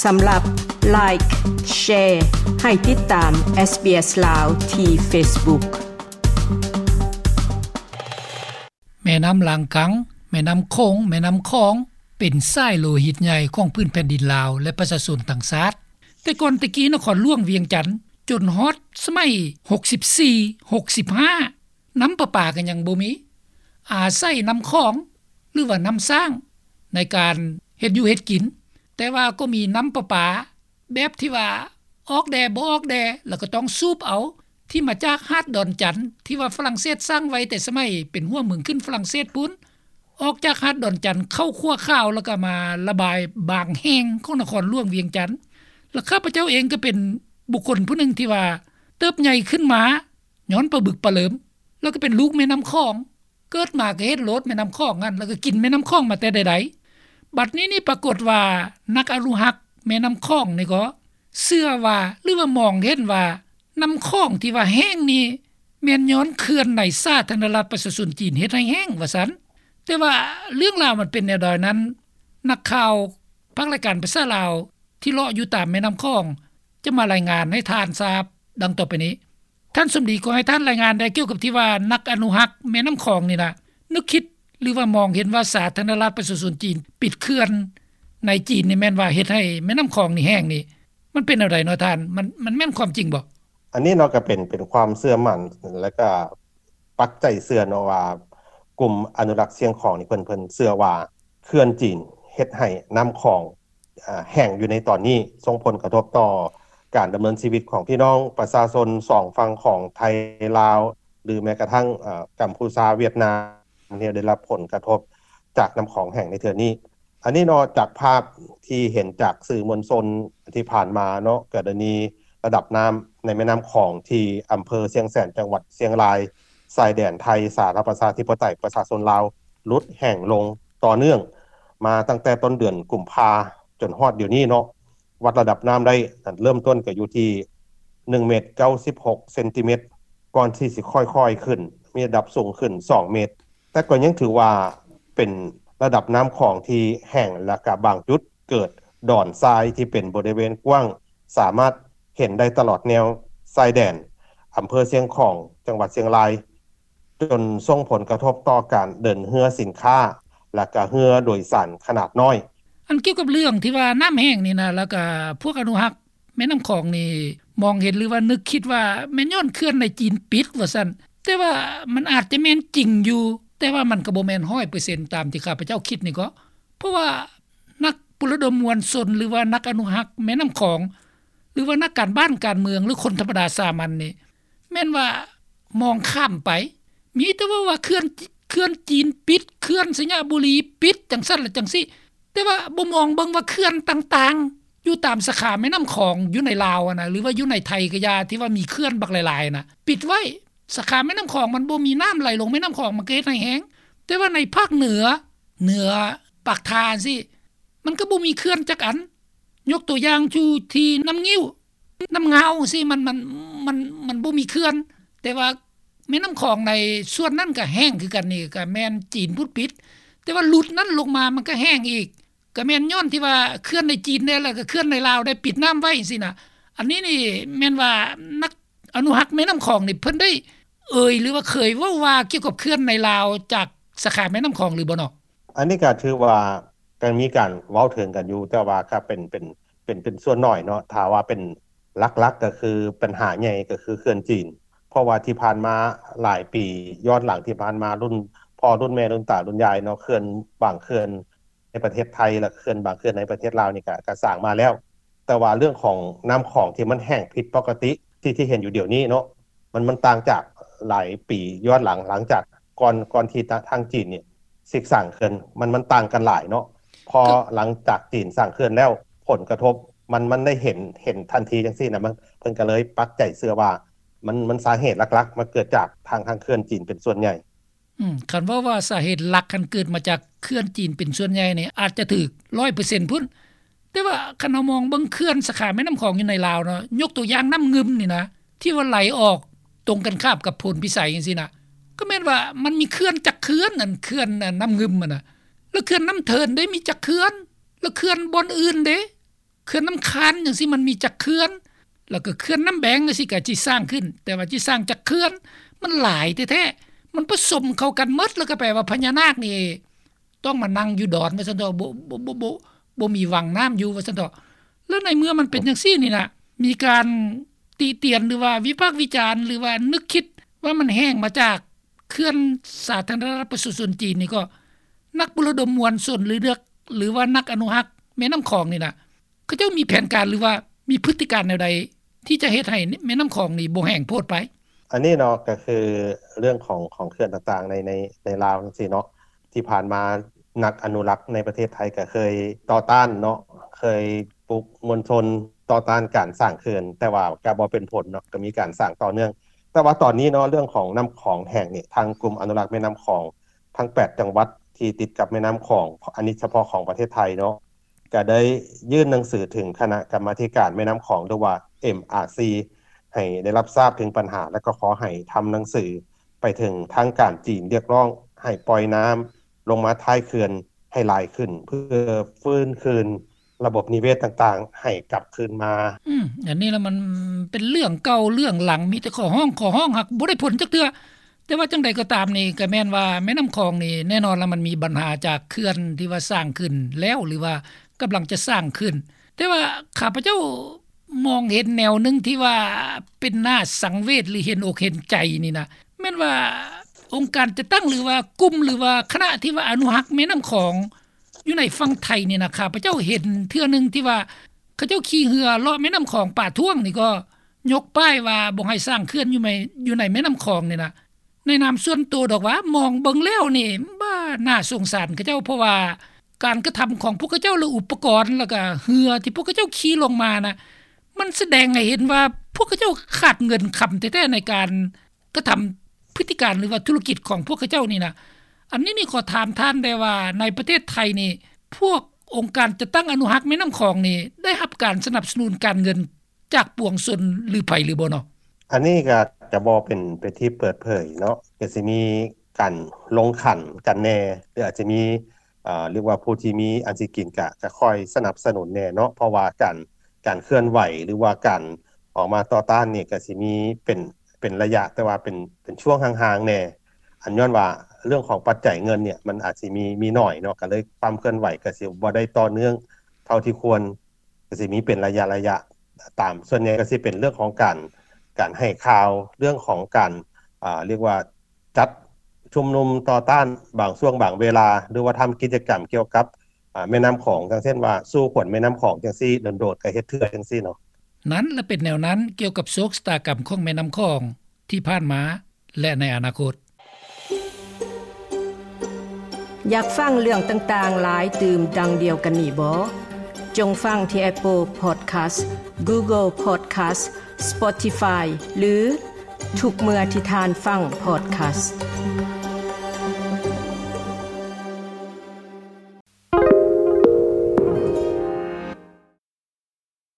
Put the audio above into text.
ສຳລັບ Like, Share ໃຫ້ຕິດຕາມ SBS ລາວ ທີ່ Facebook. ແມ່ນ້ຳລາງກັງ, ແມ່ນ້ຳໂຂງ, ແມ່ນ້ຳຂອງ ເປັນສາຍໂລຫິດໃຫຍ່ຂອງພື້ນແຜ່ນດິນລາວ ແລະ ປະຊາຊົນທັງຊາດ. ແຕ່ກ່ອນແຕ່ກີ້ນະຄອນຫຼວງວຽງຈັນ ຈົນຮອດສະໄໝຫົກສິບສີ່ ຫົກສິບຫ້າ ນ້ຳປະປາກໍຍັງບໍ່ມີ, ອາໄສນ້ຳຂອງ ຫຼືວ່ານ້ຳສ້າງໃນການເຮັດຢູ່ເຮັດກິນ, ແຕ່ວ່າກໍມີນ້ຳປະປາແບບທີ່ວ່າອອກແດ່ບໍ່ອອກແດ່ ແລ້ວກໍຕ້ອງສູບເອົາ ທີ່ມາຈາກຫາດດອນຈັນ ທີ່ວ່າຝຣັ່ງເສດສ້າງໄວ້ແຕ່ສະໄໝເປັນຫົວເມືອງຂຶ້ນຝຣັ່ງເສດພຸ້ນ, ອອກຈາກຫາດດອນຈັນເຂົ້າຂົວຂາວ ແລ້ວກໍມາລະບາຍບາງແຫ່ງຂອງນະຄອນຫຼວງວຽງຈັນ. ແລະ ຂ້າພະເຈົ້າເອງກໍເປັນບຸກຄົນຜູ້ໜຶ່ງທີ່ວ່າເຕີບໃຫຍ່ຂຶ້ນມາ ຍ້ອນປາບຶກປາເຫຼີມ ແລ້ວກໍເປັນລູກແມ່ນ້ຳຂອງ, ເກີດມາກໍເຫັນໂລດແມ່ນ້ຳຂອງນັ້ນ ແລ້ວກໍກິນແມ່ນ້ຳຂອງມາແຕ່ໃດໆ. ບັດນີ້ນີ້ປາກົດວ່ານັກອະນຸຮັກແມ່ນ້ຳຂອງນີ້ກໍເຊື່ອວ່າ ຫຼືວ່າມອງເຫັນວ່າ ນ້ຳຂອງທີ່ວ່າແຫ້ງນີ້ ແມ່ນຍ້ອນເຂື່ອນໃນສາທາລະນະລັດປະຊາຊົນຈີນເຮັດໃຫ້ແຫ້ງວ່າຊັ້ນ. ແຕ່ວ່າເລື່ອງລາວມັນເປັນແນວໃດນັ້ນ ນັກຂ່າວພາກລາຍການພາສາລາວ ທີ່ເລາະຢູ່ຕາມແມ່ນ້ຳຂອງ ຈະມາລາຍງານໃຫ້ທ່ານຊາບດັ່ງຕໍ່ໄປນີ້. ທ່ານສົມດີ ຂໍໃຫ້ທ່ານລາຍງານແດ່ ກ່ຽວກັບທີ່ວ່ານັກອະນຸຮັກແມ່ນ້ຳຂອງນີ້ນະ ນຶກຄິດ ຫຼືວ່າມອງເຫັນວ່າສາທາລະນະລັດປະຊາຊົນຈີນປິດເຂື່ອນໃນຈີນນີ້ ແມ່ນວ່າເຮັດໃຫ້ແມ່ນ້ຳຂອງນີ້ແຫ້ງນີ້ ມັນເປັນແນວໃດເນາະທ່ານ? ມັນ ມັນແມ່ນຄວາມຈິງບໍ່? ອັນນີ້ເນາະ ກໍເປັນ ເປັນຄວາມເຊື່ອໝັ້ນ ແລ້ວກໍປັກໃຈເຊື່ອເນາະວ່າ ກຸ່ມອະນຸລັກຊຽງຂອງນີ້ ເພິ່ນ ເພິ່ນເຊື່ອວ່າເຂື່ອນຈີນເຮັດໃຫ້ນ້ຳຂອງ ອາ ແຫ້ງຢູ່ໃນຕອນນີ້ ສົ່ງຜົນກະທົບຕໍ່ການດຳເນີນຊີວິດຂອງພີ່ນ້ອງປະຊາຊົນສອງຝັ່ງຂອງໄທລາວ ຫຼືແມ້ກະທັ່ງ ອາ ກຳພູຊາ ຫວຽດນາມ ທີ່ໄດ້ຮັບຜົນກະທົບຈາກນ້ຳຂອງແຫ້ງໃນເທື່ອນີ້. ອັນນີ້ເນາະ ຈາກພາບທີ່ເຫັນຈາກສື່ມວນຊົນທີ່ຜ່ານມາເນາະ ກໍໄດ້ມີລະດັບນ້ຳໃນແມ່ນ້ຳຂອງທີ່ອຳເພີຊຽງແສນ ຈັງຫວັດຊຽງລາຍ ຊາຍແດນໄທສາທາລະນະລັດປະຊາທິປະໄຕປະຊາຊົນລາວ ຫຼຸດແຫ້ງລົງຕໍ່ເນື່ອງມາຕັ້ງແຕ່ຕົ້ນເດືອນກຸມພາຈົນຮອດດຽວນີ້ເນາະ. ວັດລະດັບນ້ຳໄດ້ ເລີ່ມຕົ້ນກໍຢູ່ທີ່ໜຶ່ງເມດເກົ້າສິບຫົກເຊັນຕີແມັດ ກ່ອນທີ່ຊິຄ່ອຍໆຂຶ້ນ ມີລະດັບສູງຂຶ້ນສອງເມດ ແຕ່ກໍຍັງຖືວ່າເປັນລະດັບນ້ຳຂອງທີ່ແຫ້ງ ແລະກະບາງຈຸດເກີດດອນຊາຍທີ່ເປັນບໍລິເວນກວ້າງ ສາມາດເຫັນໄດ້ຕະຫຼອດແນວຊາຍແດນ ອຳເພີຊຽງຂອງ ຈັງຫວັດຊຽງລາຍ ຈົນສົ່ງຜົນກະທົບຕໍ່ການເດີນເຮືອສິນຄ້າ ແລະກະເຮືອໂດຍສານຂະໜາດນ້ອຍ. ອັນກ່ຽວກັບເລື່ອງທີ່ວ່ານ້ຳແຫ້ງນີ້ນະ ແລ້ວກະພວກອະນຸຮັກແມ່ນ້ຳຂອງນີ້ ມອງເຫັນ ຫຼືວ່ານຶກຄິດວ່າແມ່ນຍ້ອນເຂື່ອນໃນຈີນປິດວ່າຊັ້ນ, ແຕ່ວ່າມັນອາດຈະແມ່ນຈິງຢູ່ ແຕ່ວ່າມັນກໍບໍ່ແມ່ນຮ້ອຍເປີເຊັນຕາມທີ່ຂ້າພະເຈົ້າຄິດນີ້ເກາະ. ເພາະວ່ານັກປຸລະດົມມວນຊົນ ຫຼືວ່ານັກອະນຸຮັກແມ່ນ້ຳຂອງ ຫຼືວ່ານັກການບ້ານການເມືອງ ຫຼືຄົນທຳມະດາສາມັນນີ້ ແມ່ນວ່າມອງຂ້າມໄປ ມີແຕ່ເວົ້າວ່າເຂື່ອນ ເຂື່ອນຈີນປິດ, ເຂື່ອນໄຊຍະບູລີປິດ ຈັ່ງຊັ້ນ ແລະ ຈັ່ງຊີ້ ແຕ່ວ່າບໍ່ມອງເບິ່ງວ່າເຂື່ອນຕ່າງໆ ຢູ່ຕາມສາຂາແມ່ນ້ຳຂອງຢູ່ໃນລາວຫັ້ນນະ ຫຼືວ່າຢູ່ໃນໄທກໍຢ່າ ທີ່ວ່າມີເຂື່ອນບັກຫຼາຍໆນະ ປິດໄວ້. ສາຂາແມ່ນ້ຳຂອງມັນບໍ່ມີນ້ຳໄຫຼລົງແມ່ນ້ຳຂອງ ມັນກໍເຮັດໃຫ້ແຫ້ງ. ແຕ່ວ່າໃນພາກເໜືອ ເໜືອປາກທ່າຊີ້ ມັນກໍບໍ່ມີເຂື່ອນຈັກອັນ. ຍົກຕົວຢ່າງຢູ່ທີ່ນ້ຳງິ້ວ ນ້ຳງາວຊີ້ ມັນ ມັນ ມັນ ມັນບໍ່ມີເຂື່ອນ, ແຕ່ວ່າແມ່ນ້ຳຂອງໃນສ່ວນນັ້ນກໍແຫ້ງຄືກັນ. ນີ້ກໍແມ່ນຈີນພຸ້ນປິດ, ແຕ່ວ່າຫຼຸດນັ້ນລົງມາມັນກໍແຫ້ງອີກ. ກໍແມ່ນຍ້ອນທີ່ວ່າເຂື່ອນໃນຈີນແດ່ ແລ້ວກໍເຂື່ອນໃນລາວໄດ້ປິດນ້ຳໄວ້ຊີ້ນະ. ອັນນີ້ນີ້ແມ່ນວ່ານັກອະນຸຮັກແມ່ນ້ຳຂອງນີ້ ເພິ່ນໄດ້ເອີ່ຍ ຫຼືວ່າເຄີຍເວົ້າວ່າກ່ຽວກັບເຂື່ອນໃນລາວຈາກສາຂາແມ່ນ້ຳຂອງຫຼືບໍ່ເນາະ? ອັນນີ້ກໍຖືວ່າ ກໍມີການເວົ້າເຖິງກັນຢູ່ ແຕ່ວ່າກໍເປັນ ເປັນ ເປັນ ເປັນສ່ວນໜ້ອຍເນາະ. ຖ້າວ່າເປັນຫຼັກໆ ກໍຄື ປັນຫາໃຫຍ່ກໍຄືເຂື່ອນຈີນ. ເພາະວ່າທີ່ຜ່ານມາຫຼາຍປີຍ້ອນຫຼັງທີ່ຜ່ານມາ ລຸ້ນພໍ່ລຸ້ນແມ່ລຸ້ນຕາລຸ້ນຍາຍເນາະ ເຂື່ອນບາງເຂື່ອນໃນປະເທດໄທ ແລະ ເຂື່ອນບາງເຂື່ອນໃນປະເທດລາວນີ້ກໍ ກໍສ້າງມາແລ້ວ. ແຕ່ວ່າເລື່ອງຂອງນ້ຳຂອງທີ່ມັນແຫ້ງຜິດປົກກະຕິ ທີ່ ທີ່ເຫັນຢູ່ດຽວນີ້ເນາະ ມັນ ມັນຕ່າງຈາກຫຼາຍປີຍ້ອນຫຼັງ ຫຼັງຈາກກ່ອນ ກ່ອນທີ່ທາງ ທາງຈີນນີ້ຊິສ້າງເຂື່ອນ ມັນ ມັນຕ່າງກັນຫຼາຍເນາະ. ພໍຫຼັງຈາກຈີນສ້າງເຂື່ອນແລ້ວ ຜົນກະທົບມັນ ມັນໄດ້ເຫັນ ເຫັນທັນທີຈັ່ງຊີ້ນະ ມັນ ເພິ່ນກໍເລີຍປັກໃຈເຊື່ອວ່າ ມັນ ມັນສາເຫດຫຼັກໆ ມັນເກີດຈາກທາງ ທາງເຂື່ອນຈີນເປັນສ່ວນໃຫຍ່. ອືມ ຄັນເວົ້າວ່າສາເຫດຫຼັກຫັ້ນເກີດມາຈາກເຂື່ອນຈີນເປັນສ່ວນໃຫຍ່ນີ້ ອາດຈະຖືກຮ້ອຍເປີເຊັນພຸ້ນ. ແຕ່ວ່າຄັນເຮົາມອງເບິ່ງເຂື່ອນສາຂາແມ່ນ້ຳຂອງຢູ່ໃນລາວເນາະ ຍົກຕົວຢ່າງນ້ຳງື່ມນີ້ນະ ທີ່ວ່າໄຫຼອອກຕົງກັນຂ້າມກັບໂພນພິໄສຈັ່ງຊີ້ນະ ກໍແມ່ນວ່າມັນມີເຂື່ອນຈັກເຂື່ອນ ອັນເຂື່ອນ ອັນນ້ຳງື່ມຫັ້ນນະ. ແລ້ວເຂື່ອນນ້ຳເທີນເດ້ ມີຈັກເຂື່ອນ? ແລ້ວເຂື່ອນບ່ອນອື່ນເດ້? ເຂື່ອນນ້ຳຄານຈັ່ງຊີ້ມັນມີຈັກເຂື່ອນ ແລ້ວກໍເຂື່ອນນ້ຳແບງຈັ່ງຊີ້ກໍຊິສ້າງຂຶ້ນ ແຕ່ວ່າຊິສ້າງຈັກເຂື່ອນ ມັນຫຼາຍແທ້ໆ ມັນປະສົມເຂົ້າກັນໝົດ ແລ້ວກໍແປວ່າພະຍານາກນີ້ ຕ້ອງມານັ່ງຢູ່ດອນວ່າຊັ້ນເຖາະ ບໍ່ ບໍ່ ບໍ່ ບໍ່ ບໍ່ມີວັງນ້ຳຢູ່ວ່າຊັ້ນເຖາະ. ແລ້ວໃນເມື່ອມັນເປັນຈັ່ງຊີ້ນີ້ນະ ມີການຕິຕຽນ ຫຼືວ່າວິພາກວິຈານ ຫຼືວ່ານຶກຄິດວ່າມັນແຫ້ງມາຈາກເຂື່ອນສາທາລະນະລັດປະຊາຊົນຈີນນີ້ ກໍນັກປຸລະດົມມວນຊົນ ຫຼື ເລືອກ ຫຼືວ່ານັກອະນຸຮັກແມ່ນ້ຳຂອງນີ້ນະ ເຂົາເຈົ້າມີແຜນການ ຫຼືວ່າມີພຶດຕິການແນວໃດ ທີ່ຈະເຮັດໃຫ້ແມ່ນ້ຳຂອງນີ້ບໍ່ແຫ້ງໂພດໄປ? ອັນນີ້ເນາະ ກໍຄືເລື່ອງຂອງ ຂອງເຂື່ອນຕ່າງໆ ໃນ ໃນ ໃນລາວຈັ່ງຊີ້ເນາະ ທີ່ຜ່ານມານັກອະນຸລັກໃນປະເທດໄທກໍເຄີຍຕໍ່ຕ້ານເນາະ ເຄີຍປຸກມວນຊົນຕໍ່ຕ້ານການສ້າງເຂື່ອນ ແຕ່ວ່າກໍບໍ່ເປັນຜົນເນາະ ກໍມີການສ້າງຕໍ່ເນື່ອງ. ແຕ່ວ່າຕອນນີ້ເນາະ ເລື່ອງຂອງນ້ຳຂອງແຫ້ງນີ້ ທາງກຸ່ມອະນຸລັກແມ່ນ້ຳຂອງທັງແປດຈັງຫວັດທີ່ຕິດກັບແມ່ນ້ຳຂອງ ອັນນີ້ສະເພາະຂອງປະເທດໄທເນາະ ກໍໄດ້ຍື່ນໜັງສືເຖິງຄະນະກຳມາທິການແມ່ນ້ຳຂອງ ຫຼືວ່າ ເອັມອາຊີ ໃຫ້ໄດ້ຮັບຊາບເຖິງບັນຫາ ແລະ ກໍຂໍໃຫ້ທຳໜັງສືໄປເຖິງທາງການຈີນ ຮຽກຮ້ອງໃຫ້ປ່ອຍນ້ຳລົງມາທ້າຍເຂື່ອນໃຫ້ຫຼາຍຂຶ້ນ ເພື່ອຟື້ນຄືນລະບົບນິເວດຕ່າງໆ ໃຫ້ກັບຄືນມາ. ອືມ ອັນນີ້ລະມັນເປັນເລື່ອງເກົ່າເລື່ອງຫຼັງ ມີແຕ່ຂໍຮ້ອງ ຂໍຮ້ອງ ຫາກບໍ່ໄດ້ຜົນຈັກເທື່ອ. ແຕ່ວ່າຈັ່ງໃດກໍຕາມນີ້ ກໍແມ່ນວ່າແມ່ນ້ຳຂອງນີ້ ແນ່ນອນລະມັນມີບັນຫາຈາກເຂື່ອນທີ່ວ່າສ້າງຂຶ້ນແລ້ວ ຫຼືວ່າກຳລັງຈະສ້າງຂຶ້ນ ແຕ່ວ່າຂ້າພະເຈົ້າມອງເຫັນແນວໜຶ່ງທີ່ວ່າເປັນໜ້າສັງເວດ ຫຼືເຫັນອົກເຫັນໃຈນີ້ນະ ແມ່ນວ່າອົງການຈັດຕັ້ງ ຫຼືວ່າກຸ່ມ ຫຼືວ່າຄະນະທີ່ວ່າອະນຸຮັກແມ່ນ້ຳຂອງ ຢູ່ໃນຝັ່ງໄທນີ້ນະ ຂ້າພະເຈົ້າເຫັນເທື່ອໜຶ່ງທີ່ວ່າເຂົາເຈົ້າຂີ່ເຮືອເລາະແມ່ນ້ຳຂອງປາທ້ວງນີ້ ກໍຍົກປ້າຍວ່າບໍ່ໃຫ້ສ້າງເຂື່ອນຢູ່ໃນ ຢູ່ໃນແມ່ນ້ຳຂອງນີ້ນະ ໃນນາມສ່ວນໂຕດອກວ່າ ມອງເບິ່ງແລ້ວນີ້ ບ້າ ໜ້າສົງສານເຂົາເຈົ້າ ເພາະວ່າການກະທຳຂອງພວກເຂົາເຈົ້າ ແລະ ອຸປະກອນ ແລ້ວກະເຮືອທີ່ພວກເຂົາເຈົ້າຂີ່ລົງມານະ ມັນສະແດງໃຫ້ເຫັນວ່າພວກເຂົາເຈົ້າຂາດເງິນຄຳແທ້ໆ ໃນການ ກະທຳພຶດຕິການ ຫຼືວ່າທຸລະກິດຂອງພວກເຂົາເຈົ້ານີ້ນະ. ອັນນີ້ນີ້ຂໍຖາມທ່ານແດ່ວ່າ ໃນປະເທດໄທນີ້ ພວກອົງການຈັດຕັ້ງອະນຸຮັກແມ່ນ້ຳຂອງນີ້ ໄດ້ຮັບການສະໜັບສະໜູນການເງິນຈາກປວງຊົນ ຫຼື ໃຜ ຫຼືບໍ່ເນາະ? ອັນນີ້ກະ ກະບໍ່ເປັນ ເປັນທີ່ເປີດເຜີຍເນາະ ກະຊິມີການລົງຂັນກັນແດ່ ຫຼື ອາດຈະມີ ເອີ ເອີ້ນວ່າຜູ້ທີ່ມີອັນຊິກິນກະ ກະຄອຍສະໜັບສະໜູນແດ່ເນາະ ເພາະວ່າການ ການເຄື່ອນໄຫວ ຫຼືວ່າການອອກມາຕໍ່ຕ້ານນີ້ ກະຊິມີເປັນ ເປັນໄລຍະ ແຕ່ວ່າເປັນ ເປັນຊ່ວງຫ່າງໆແດ່ ອັນຍ້ອນວ່າເລື່ອງຂອງປັດໄຈເງິນເນີ້ຍ ມັນອາດຊິມີ ມີໜ້ອຍເນາະ ກະເລີຍຄວາມເຄື່ອນໄຫວກະຊິບໍ່ໄດ້ຕໍ່ເນື່ອງເທົ່າທີ່ຄວນ ກະຊິມີເປັນໄລຍະໆ ຕາມ ສ່ວນໃຫຍ່ກະຊິເປັນເລື່ອງຂອງການ ການໃຫ້ຂ່າວ ເລື່ອງຂອງການ ເອີ້ນວ່າ ຈັດຊຸມນຸມຕໍ່ຕ້ານບາງຊ່ວງບາງເວລາ ຫຼືວ່າທຳກິດຈະກຳກ່ຽວກັບ ອາ ແມ່ນ້ຳຂອງ ຢ່າງເຊັ່ນວ່າ ສູ້ຂົນແມ່ນ້ຳຂອງຈັ່ງຊີ້ ດົນໆກະເຮັດເທື່ອຈັ່ງຊີ້ເນາະ. ນັ້ນລະເປັນແນວນັ້ນ ກ່ຽວກັບໂຊກຊະຕາກຳຂອງແມ່ນ້ຳຂອງທີ່ຜ່ານມາ ແລະ ໃນອະນາຄົດ. ຢາກຟັງເລື່ອງຕ່າງໆຫຼາຍຕື່ມດັ່ງດຽວກັນນີ້ບໍ? ຈົ່ງຟັງທີ່ Apple Podcast, Google Podcast, Spotify ຫຼື ທຸກເມື່ອທີ່ທ່ານຟັງ Podcast.